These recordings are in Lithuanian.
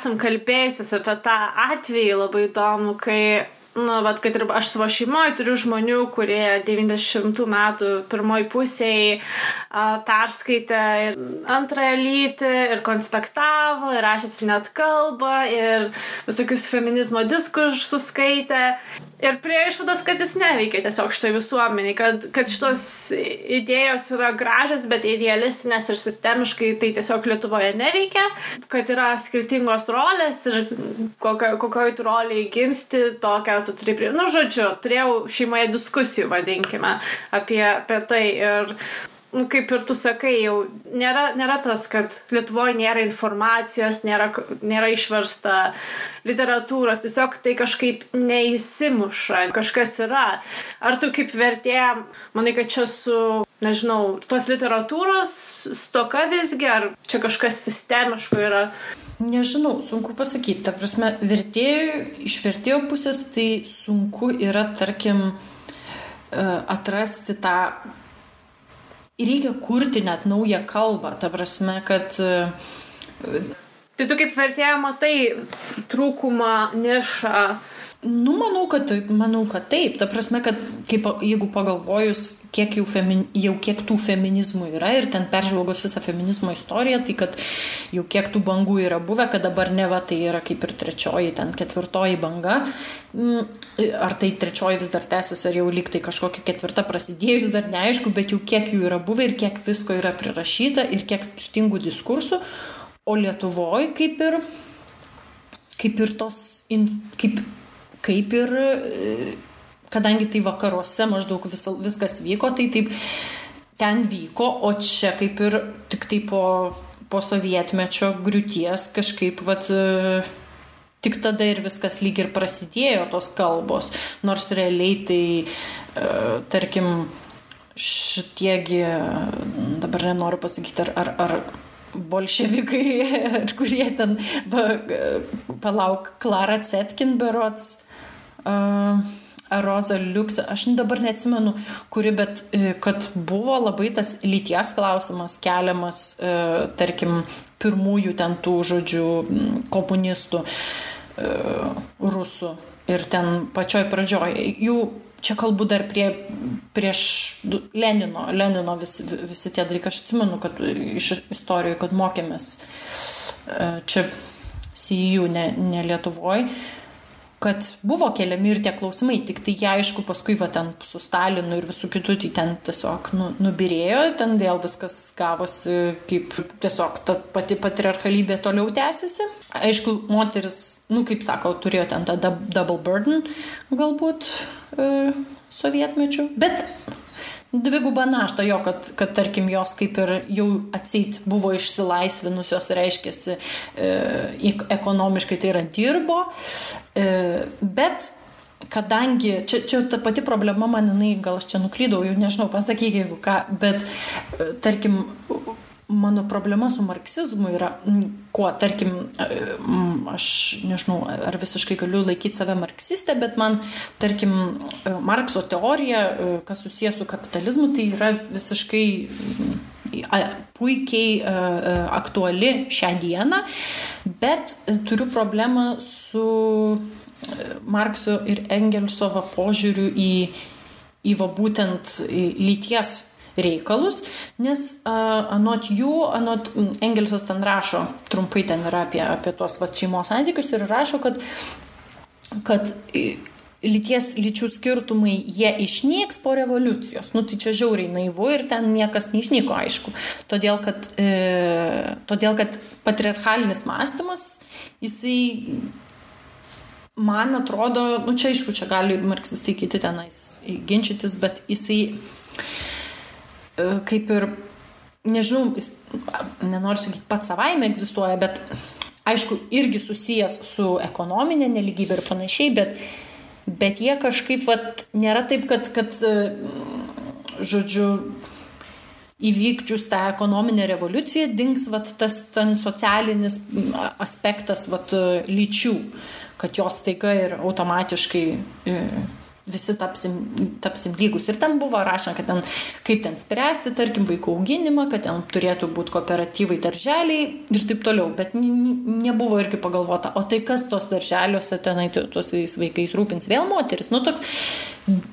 esam kalbėjusios apie tą atvejį labai įdomu, kai kad ir aš savo šeimoje turiu žmonių, kurie 90 metų pirmoj pusėje perskaitė antrąją lytį ir konspektavo, ir rašėsi net kalbą, ir visokius feminizmo diskursus skaitė. Ir prie išvados, kad jis neveikia tiesiog šitoj visuomeniai, kad šitos idėjos yra gražios, bet idealistinės ir sistemiškai tai tiesiog Lietuvoje neveikia, kad yra skirtingos rolės ir kokioj tu roliai gimsti, tokią tu turi turėjau šeimoje diskusijų, vadinkime, apie tai ir kaip ir tu sakai, jau nėra tas, kad Lietuvoje nėra informacijos, nėra išversta literatūros, tiesiog tai kažkaip neįsimuša, kažkas yra. Ar tu kaip vertėja, manai, kad čia su, nežinau, tos literatūros stoka visgi, ar čia kažkas sistemiško yra? Nežinau, sunku pasakyti. Ta prasme, iš vertėjo pusės tai sunku yra, tarkim, atrasti tą. Reikia kurti net naują kalbą. Ta prasme, kad... Tai tu kaip vertėja matai trūkumą, nišą? Manau, kad taip. Ta prasme, kad jeigu pagalvojus, kiek tų feminizmų yra ir ten peržvelgus visą feminizmo istoriją, tai kad jau kiek tų bangų yra buvę, kad dabar neva tai yra kaip ir trečioji, ten ketvirtoji banga. Ar tai trečioji vis dar tęsis, ar jau lyg tai kažkokia ketvirta prasidėjus, dar neaišku, bet jau kiek jų yra buvę ir kiek visko yra prirašyta ir kiek skirtingų diskursų. O Lietuvoje kaip ir kadangi tai vakaruose maždaug viskas vyko, tai taip ten vyko, o čia kaip ir tik tai po sovietmečio griūties kažkaip tik tada ir viskas lyg ir prasidėjo tos kalbos, nors realiai tai tarkim šitiegi, dabar nenoriu pasakyti, ar bolševikai, kurie ten Klara Zetkin berods, Roza Liuks, aš dabar neatsimenu, kuri, bet kad buvo labai tas lyties klausimas keliamas, tarkim, pirmųjų ten tų žodžių komunistų rusų ir ten pačioj pradžioj. Jų čia kalbu dar prieš Lenino visi tie dalykai. Aš atsimenu, kad iš istorijų, kad mokėmės čia CEU, ne Lietuvoje, kad buvo keliami ir tie klausimai, tik tai jie aišku paskui ten su Stalinu ir visų kitų, tai ten tiesiog nubirėjo, ten vėl viskas gavosi kaip tiesiog ta pati patriarchalybė toliau tęsiasi. Aišku, moteris, kaip sako, turėjo ten tą double burden galbūt sovietmečių, bet dvigubą naštą jo, kad tarkim jos kaip ir jau atseit buvo išsilaisvinusios, reiškiasi ekonomiškai tai yra dirbo, bet kadangi, čia ta pati problema man, gal aš čia nuklydau, jau nežinau, pasakyk jeigu ką, bet tarkim, mano problema su marksizmu yra, tarkim, aš nežinau, ar visiškai galiu laikyti save marksistę, bet man, tarkim, Markso teorija, kas susijęs su kapitalizmu, tai yra visiškai puikiai aktuali šią dieną, bet turiu problemą su Markso ir Engelso požiūriu į būtent lyties reikalus, nes anot Engelsas ten rašo, trumpai ten yra apie tuos šeimos santykius ir rašo, kad lyčių skirtumai jie išnyks po revoliucijos. Tai čia žiauriai naivu ir ten niekas neišnyko, aišku. Todėl, kad patriarchalinis mąstymas, jisai man atrodo, čia aišku, čia gali marksistai kiti tenais ginčytis, bet jisai kaip ir, nežinau, nenoriu sakyti, pats savaime egzistuoja, bet aišku, irgi susijęs su ekonominė nelygybė ir panašiai, bet jie kažkaip nėra taip, kad žodžiu, įvykdžius tą ekonominę revoliuciją dings tas ten socialinis aspektas lyčių, kad jos staiga ir automatiškai visi tapsim lygus. Ir ten buvo rašoma, kad ten, kaip ten spręsti, tarkim, vaikų auginimą, kad ten turėtų būti kooperatyvai darželiai ir taip toliau. Bet nebuvo irgi pagalvota, o tai kas tos darželiuose tenai tuos vaikais rūpins, vėl moteris. Nu, toks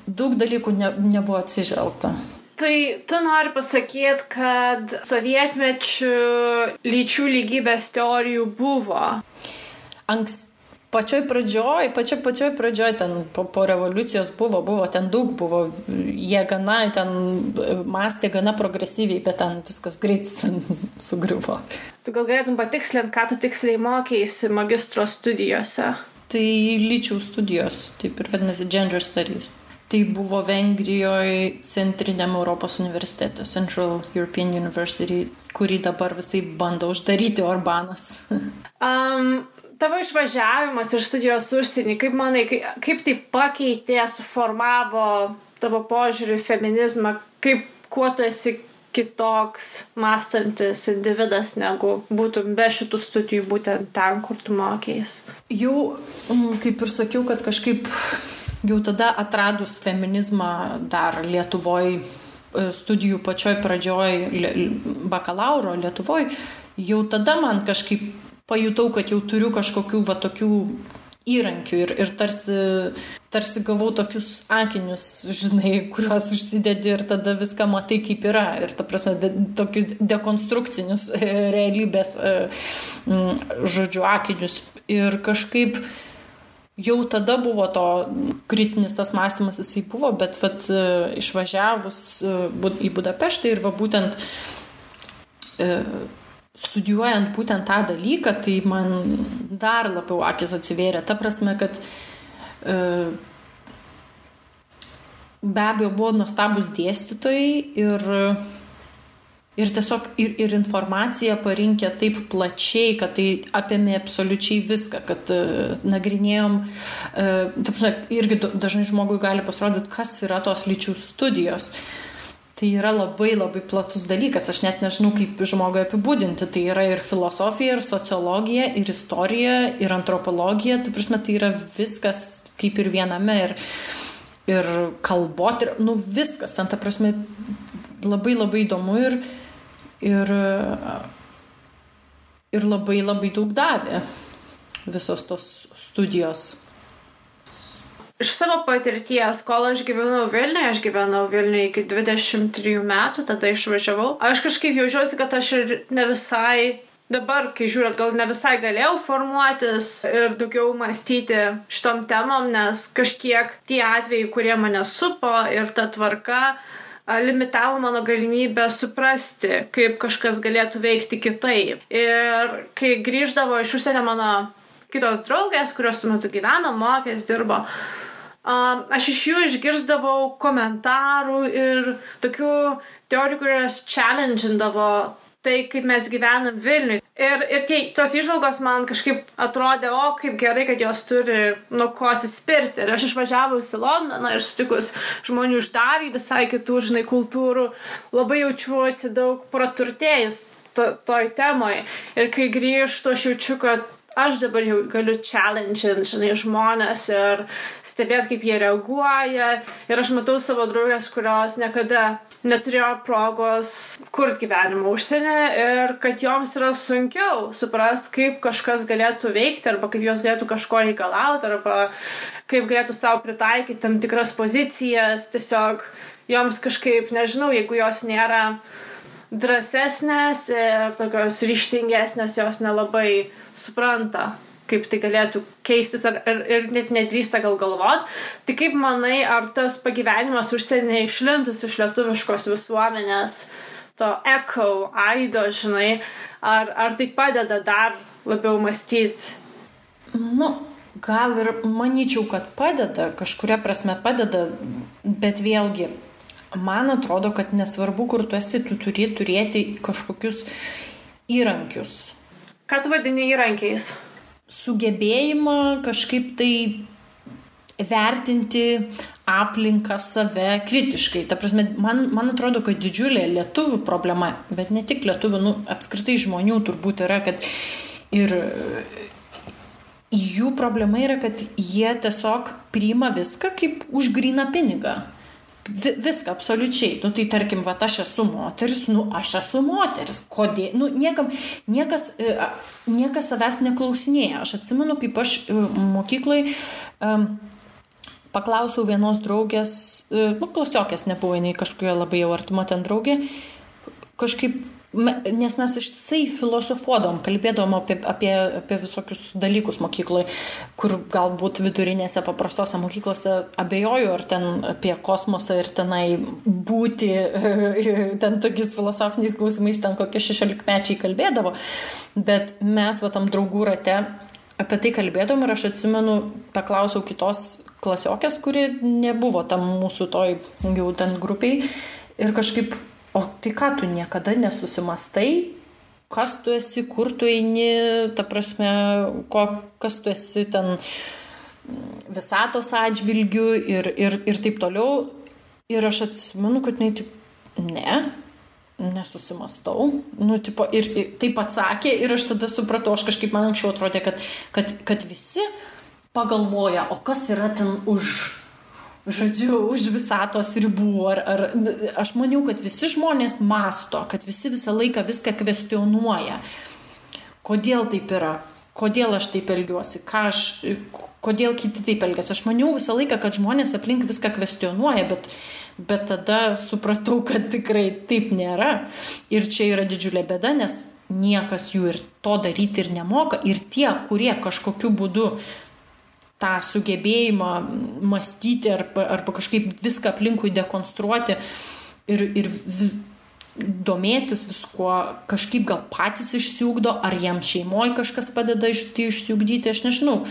daug dalykų nebuvo atsižvelgta. Tai tu nori pasakyti, kad sovietmečių lyčių lygybės teorijų buvo? Pačioj pradžioj, ten po revoliucijos buvo, ten daug buvo, jie gana, ten mąstė gana progresyviai, bet ten viskas greit sugriuvo. Tu gal galėtum patikslinti, ką tu tiksliai mokėsi magistro studijose? Tai lyčių studijos, taip ir vadinasi Gender Studies. Tai buvo Vengrijoje Centriniam Europos universitete, Central European University, kurį dabar visai bando uždaryti Orbanas. Tavo išvažiavimas ir studijos užsienį, kaip manai, kaip tai pakeitė, suformavo tavo požiūrį į feminizmą, kuo tu esi kitoks mąstantis individas, negu būtum be šitų studijų būtent ten, kur tu mokėjais? Jau, kaip ir sakiau, kad kažkaip jau tada atradus feminizmą dar Lietuvoj, studijų pačioj pradžioj bakalauro Lietuvoj, jau tada man kažkaip pajutau, kad jau turiu kažkokių tokių įrankių ir tarsi gavau tokius akinius, žinai, kuriuos užsidedi ir tada viską matai kaip yra. Ir ta prasme, tokius dekonstrukcinius realybės, žodžiu, akinius. Ir kažkaip jau tada buvo to kritinis tas mąstymas, jisai buvo, bet išvažiavus į Budapeštą ir būtent studijuojant būtent tą dalyką, tai man dar labiau akis atsivėrė. Ta prasme, kad be abejo buvo nuostabus dėstytojai ir tiesiog ir informaciją parinkę taip plačiai, kad tai apėmė absoliučiai viską, kad nagrinėjom, ta prasme, irgi dažnai žmogui gali pasirodyti, kas yra tos lyčių studijos. Tai yra labai labai platus dalykas, aš net nežinau, kaip žmogui apibūdinti. Tai yra ir filosofija, ir sociologija, ir istorija, ir antropologija. Tai prasme, tai yra viskas kaip ir viename, ir kalbotyra, viskas. Ten, ta prasme, labai labai įdomu ir labai labai daug davė visos tos studijos. Iš savo patirties, kol aš gyvenau Vilniuje iki 23 metų, tada išvažiavau. Aš kažkaip jaučiuosi, kad aš ir ne visai, dabar, kai žiūrėt, gal ne visai galėjau formuotis ir daugiau mąstyti šitom temom, nes kažkiek tie atvejai, kurie mane supo ir ta tvarka, limitavo mano galimybę suprasti, kaip kažkas galėtų veikti kitaip. Ir kai grįždavo iš užsienio mano kitos draugės, kurios su metu gyveno, mokės, dirbo, aš iš jų išgirsdavau komentarų ir tokių teorijų, kurios challenge'indavo tai, kaip mes gyvenam Vilniuje. Ir tos įžvalgos man kažkaip atrodė, kaip gerai, kad jos turi nuo ko atsispirti. Ir aš išvažiavus į Londoną ir sutikus žmonių iš dar visai kitų, žinai, kultūrų, labai jaučiuosi daug praturtėjus toj temoj. Ir kai grįžtu, aš jaučiu, kad aš dabar jau galiu challenge-int, žinai, žmonės ir stebėti, kaip jie reaguoja. Ir aš matau savo draugės, kurios niekada neturėjo progos kurti gyvenimą užsienį ir kad joms yra sunkiau suprasti, kaip kažkas galėtų veikti arba kaip jos galėtų kažko reikalauti arba kaip galėtų savo pritaikyti tam tikras pozicijas. Tiesiog joms kažkaip, nežinau, jeigu jos nėra drąsesnės ir tokios ryžtingesnės, jos nelabai supranta, kaip tai galėtų keistis ir net nedrįsta gal galvot. Tai kaip manai, ar tas pagyvenimas užsienyje išlintus iš lietuviškos visuomenės, to echo, aido, žinai, ar tai padeda dar labiau mąstyti? Gal ir manyčiau, kad padeda, kažkuria prasme padeda, bet vėlgi, man atrodo, kad nesvarbu, kur tu esi, tu turi turėti kažkokius įrankius. Ką tu vadini įrankiais? Sugebėjimą kažkaip tai vertinti aplinką, save kritiškai. Ta prasme, man atrodo, kad didžiulė lietuvių problema, bet ne tik lietuvių, apskritai žmonių turbūt yra, kad ir jų problema yra, kad jie tiesiog priima viską kaip už gryną pinigą. Viską, absoliučiai. Nu, tai tarkim, va, aš esu moteris, aš esu moteris. Kodėl? Niekas savęs neklausinėja. Aš atsimenu, kaip aš mokyklai paklausiau vienos draugės, klasiokės nebuvo, jinai kažkokia labai jau artima ten draugė, kažkaip, nes mes ištisai filosofuodom, kalbėdom apie visokius dalykus mokykloje, kur galbūt vidurinėse paprastose mokyklose abejoju, ar ten apie kosmosą ir tenai būti, ten tokiais filosofiniais klausimais ten kokie 16-mečiai kalbėdavo, bet mes va tam draugų rate apie tai kalbėdom ir aš atsimenu, paklausiau kitos klasiokės, kuri nebuvo tam mūsų toj jau ten grupiai ir kažkaip, o tai ką tu niekada nesusimastai, kas tu esi, kur tu eini, ta prasme, kas tu esi ten visatos atžvilgių ir taip toliau. Ir aš atsimenu, kad nesusimastau. Ir taip atsakė ir aš tada supratau, aš kažkaip man anksčiau atrodė, kad visi pagalvoja, o kas yra ten už visatos ribų. Aš maniau, kad visi žmonės masto, kad visi visą laiką viską kvestionuoja. Kodėl taip yra? Kodėl aš taip elgiuosi? Kodėl kiti taip elgiasi? Aš maniau visą laiką, kad žmonės aplink viską kvestionuoja, bet tada supratau, kad tikrai taip nėra. Ir čia yra didžiulė bėda, nes niekas jų ir to daryti ir nemoka. Ir tie, kurie kažkokiu būdu tą sugebėjimą mąstyti arba kažkaip viską aplinkui dekonstruoti ir domėtis viskuo, kažkaip gal patys išsiugdo, ar jam šeimoje kažkas padeda išsiugdyti, aš nežinau,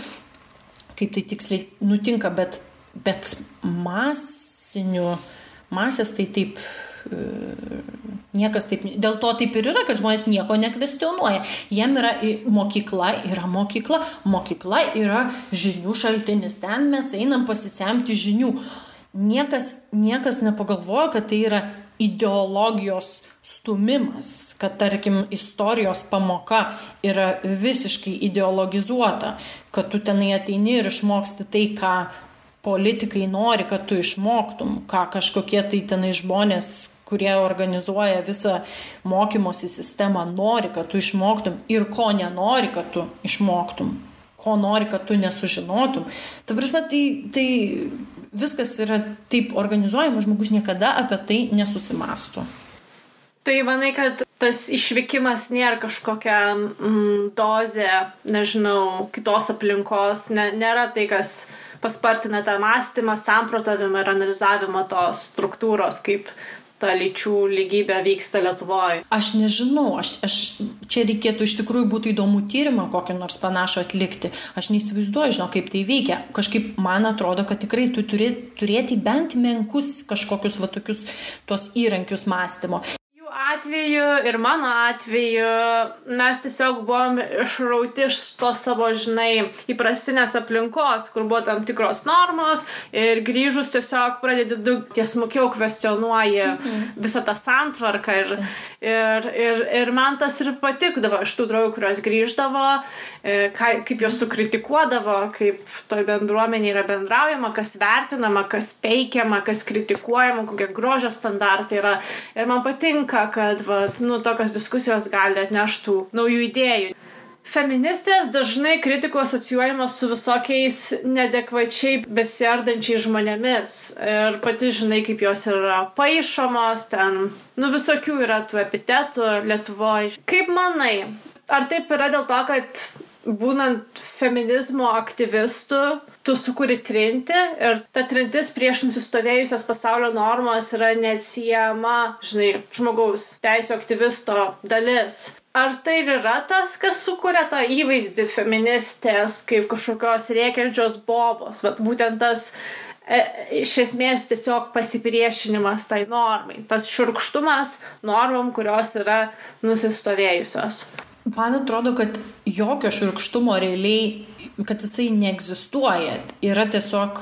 kaip tai tiksliai nutinka, bet masės tai taip niekas taip, dėl to taip ir yra, kad žmonės nieko nekvestionuoja. Jiem yra mokykla yra žinių šaltinis, ten mes einam pasisemti žinių. Niekas nepagalvoja, kad tai yra ideologijos stumimas, kad tarkim istorijos pamoka yra visiškai ideologizuota, kad tu tenai ateini ir išmoksti tai, ką politikai nori, kad tu išmoktum, ką kažkokie tai tenai žmonės, kurie organizuoja visą mokymosi sistemą, nori, kad tu išmoktum ir ko nenori, kad tu išmoktum, ko nori, kad tu nesužinotum. Ta prasme, tai viskas yra taip organizuojama, žmogus niekada apie tai nesusimąsto. Tai manai, kad tas išvykimas nėra kažkokia dozė, nežinau, kitos aplinkos, nėra tai, kas paspartina tą mąstymą, samprotavimą ir analizavimą tos struktūros, kaip ta lyčių lygybė vyksta Lietuvoje. Aš nežinau, čia reikėtų iš tikrųjų būtų įdomų tyrimą kokį nors panašų atlikti. Aš neįsivaizduoju, kaip tai veikia. Kažkaip man atrodo, kad tikrai tu turėti bent menkus kažkokius va tokius tos įrankius mąstymo. Atveju ir mano atveju mes tiesiog buvom išrauti iš to savo, įprastinės aplinkos, kur buvo tam tikros normos ir grįžus tiesiog pradedi daug tiesmukiau kvestionuoji visą tą santvarką ir man tas ir patikdavo iš tų draugų, kurios grįždavo, kaip jos sukritikuodavo, kaip toj bendruomenė yra bendraujama, kas vertinama, kas peikiama, kas kritikuojama, kokie grožio standartai yra. Ir man patinka, kad tokios diskusijos gali atneštų naujų idėjų. Feministės dažnai kritikų asocijuojamos su visokiais neadekvačiai besiardančiais žmonėmis. Ir pati žinai, kaip jos yra paišomos, ten, visokių yra tų epitetų Lietuvoje. Kaip manai, ar taip yra dėl to, kad būnant feminizmo aktyvistu, tu sukuri trintį ir ta trintis prieš nusistovėjusias pasaulio normas yra neatsiejama, žmogaus teisių aktyvisto dalis. Ar tai yra tas, kas sukuria tą įvaizdį feministės kaip kažkokios rėkiančios bobos? Būtent tas iš esmės tiesiog pasipriešinimas tai normai. Tas šiurkštumas normom, kurios yra nusistovėjusios. Man atrodo, kad jokio šiurkštumo realiai, kad jisai neegzistuoja. Yra tiesiog...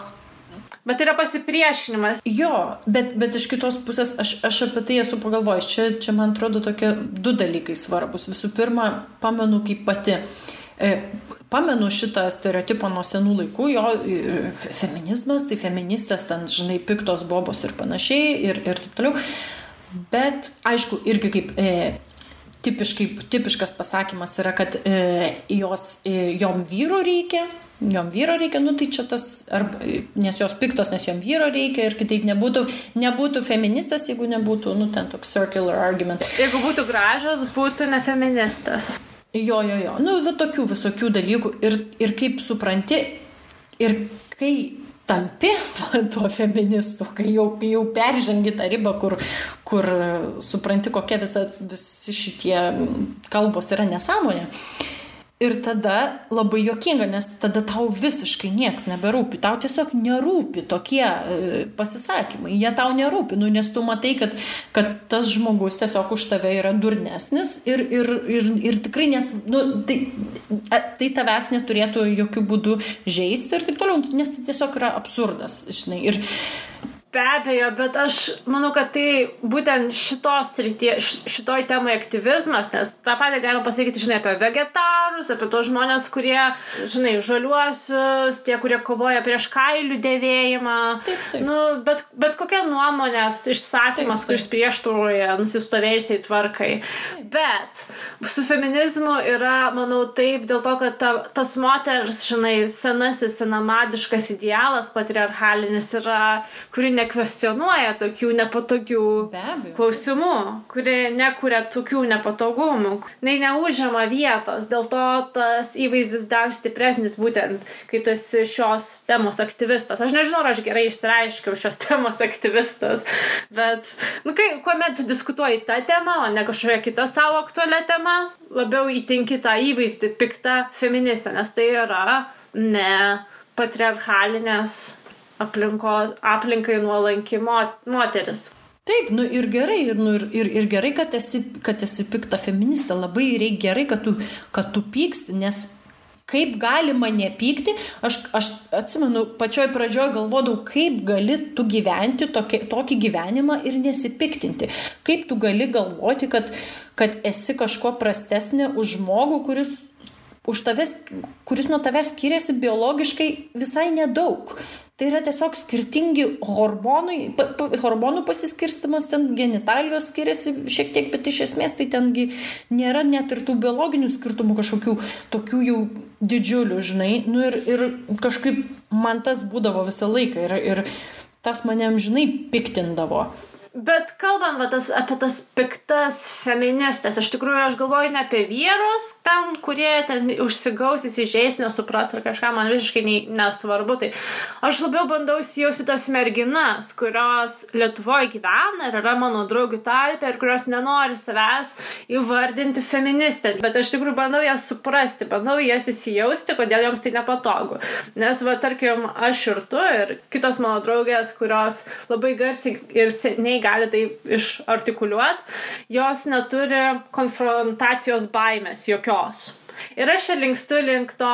Bet yra pasipriešinimas. Jo, bet iš kitos pusės aš apie tai esu pagalvojęs. Čia man atrodo tokie du dalykai svarbus. Visų pirma, pamenu kaip pati. pamenu šitą stereotipą nuo senų laikų, jo feminizmas, tai feministės ten, žinai, piktos bobos ir panašiai ir taip toliau. Bet, aišku, irgi kaip tipiškas pasakymas yra, kad jom vyro reikia, nu tai čia tas, nes jos piktos, nes jom vyro reikia ir kitaip nebūtų feministas, jeigu nebūtų, nu ten toks circular argument. Jeigu būtų gražios, būtų ne feministas. Jo, nu va tokių visokių dalykų ir kaip supranti, ir kai tampi tuo feministu, kai jau peržengi tą ribą, kur supranti, kokia visi šitie kalbos yra nesąmonė. Ir tada labai juokinga, nes tada tau visiškai nieks neberūpi. Tau tiesiog nerūpi tokie pasisakymai. Jie tau nerūpi, nu, nes tu matai, kad tas žmogus tiesiog už tave yra durnesnis ir tikrai tai tavęs neturėtų jokių būdų žeisti ir taip toliau, nes tai tiesiog yra absurdas, žinai. Ir be abejo, bet aš manau, kad tai būtent šitoj temai aktyvizmas, nes tą patį galima pasakyti, žinai, apie vegetarus, apie tos žmonės, kurie, žinai, žaliuosius, tie, kurie kovoja prieš kailių dėvėjimą. Taip. Nu, bet kokia nuomonės išsakymas, kuris prieštaroja nusistovėjusiai tvarkai. Taip. Bet su feminizmu yra, manau, taip, dėl to, kad tas moters, žinai, senamadiškas idealas patriarchalinis yra, kuri nekvestionuoja tokių nepatogių klausimų, kuri nekuria tokių nepatogumų, neužima vietos, dėl to tas įvaizdis dar stipresnis būtent, kai tu esi šios temos aktyvistas. Aš nežinau, ar aš gerai išsireiškiau šios temos aktyvistas, bet, nu, kuomet tu diskutuoji tą temą, o ne kažkokia kita savo aktualią temą, labiau įtinki tą įvaizdį piktą feministę, nes tai yra ne patriarchalinės aplinkai nuolanki moteris. Taip, nu ir gerai, ir gerai, kad esi pikta feministė, labai gerai, kad tu pyksti, nes kaip galima nepykti, aš atsimenu, pačioj pradžioj galvodavau, kaip gali tu gyventi tokį gyvenimą ir nesipiktinti, kaip tu gali galvoti, kad esi kažko prastesnė už žmogų, kuris nuo tavęs skiriasi biologiškai visai nedaug. Tai yra tiesiog skirtingi hormonų pasiskirstimas, ten genitalijos skiriasi šiek tiek, bet iš esmės tai tengi nėra net ir tų biologinių skirtumų kažkokių tokių jau didžiulių, žinai. Nu ir kažkaip man tas būdavo visą laiką ir tas mane amžinai piktindavo. Bet kalbant apie tas piktas feministės, iš tikrųjų aš galvoju ne apie vyrus, ten, kurie ten užsigaus, įsižeis, nesupras ar kažką, man visiškai nesvarbu. Tai aš labiau bandau įsijausti tas merginas, kurios Lietuvoje gyvena ir yra mano draugių tarpe ir kurios nenori savęs įvardinti feministę. Bet aš tikrųjų bandau jas suprasti, bandau jas įsijausti, kodėl joms tai nepatogu. Nes, tarkim, aš ir tu ir kitos mano draugės, kurios labai garsiai ir seniai gali tai išartikuliuoti, jos neturi konfrontacijos baimės jokios. Ir aš čia linkstu link to,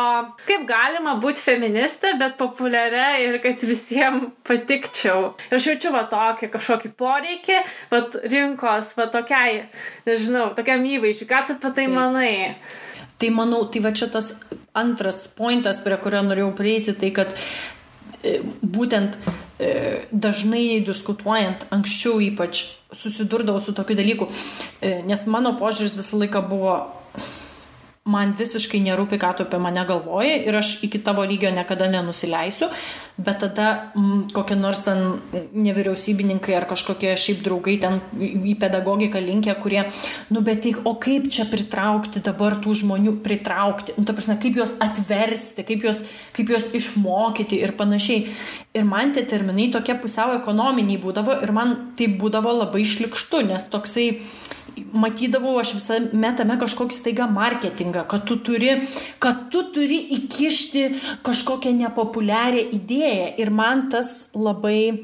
kaip galima būti feministė, bet populiaria ir kad visiems patikčiau. Ir aš jaučiu kažkokį poreikį, rinkos, tokiai, nežinau, tokiam įvaizdžiui. Ką tu apie tai manai? Tai manau, tai va čia tas antras pointas, prie kurio norėjau prieiti, tai kad būtent dažnai diskutuojant, anksčiau ypač susidurdavau su tokiu dalyku, nes mano požiūris visą laiką buvo, man visiškai nerūpi, ką tu apie mane galvoji ir aš iki tavo lygio niekada nenusileisiu, bet tada kokie nors ten nevyriausybininkai ar kažkokie šiaip draugai ten į pedagogiką linkę, kurie, bet o kaip čia pritraukti dabar tų žmonių, ta prasme, kaip juos atversti, kaip juos išmokyti ir panašiai. Ir man tie terminai tokie pusiau ekonominiai būdavo ir man tai būdavo labai šlikštu, nes toksai matydavau aš visame tame kažkokį staiga marketingą, kad tu turi įkišti kažkokią nepopuliarią idėją ir man tas labai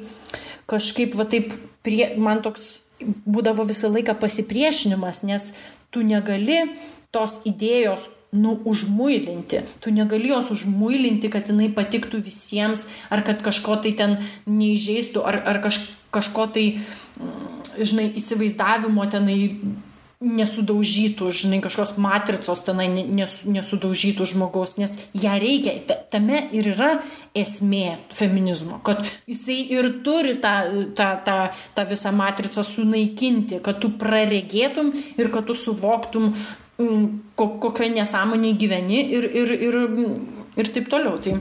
kažkaip man toks būdavo visą laiką pasipriešinimas, nes tu negali tos idėjos užmuilinti. Tu negali jos užmuilinti, kad jinai patiktų visiems, ar kad kažko tai ten neįžeistų, ar kažko tai, žinai, įsivaizdavimo tenai nesudaužytų, žinai, kažkokios matricos tenai nesudaužytų žmogaus, nes ją reikia, tame ir yra esmė feminizmo, kad jisai ir turi tą visą matricą sunaikinti, kad tu praregėtum ir kad tu suvoktum, kokioje nesąmonėje gyveni ir taip toliau. Tai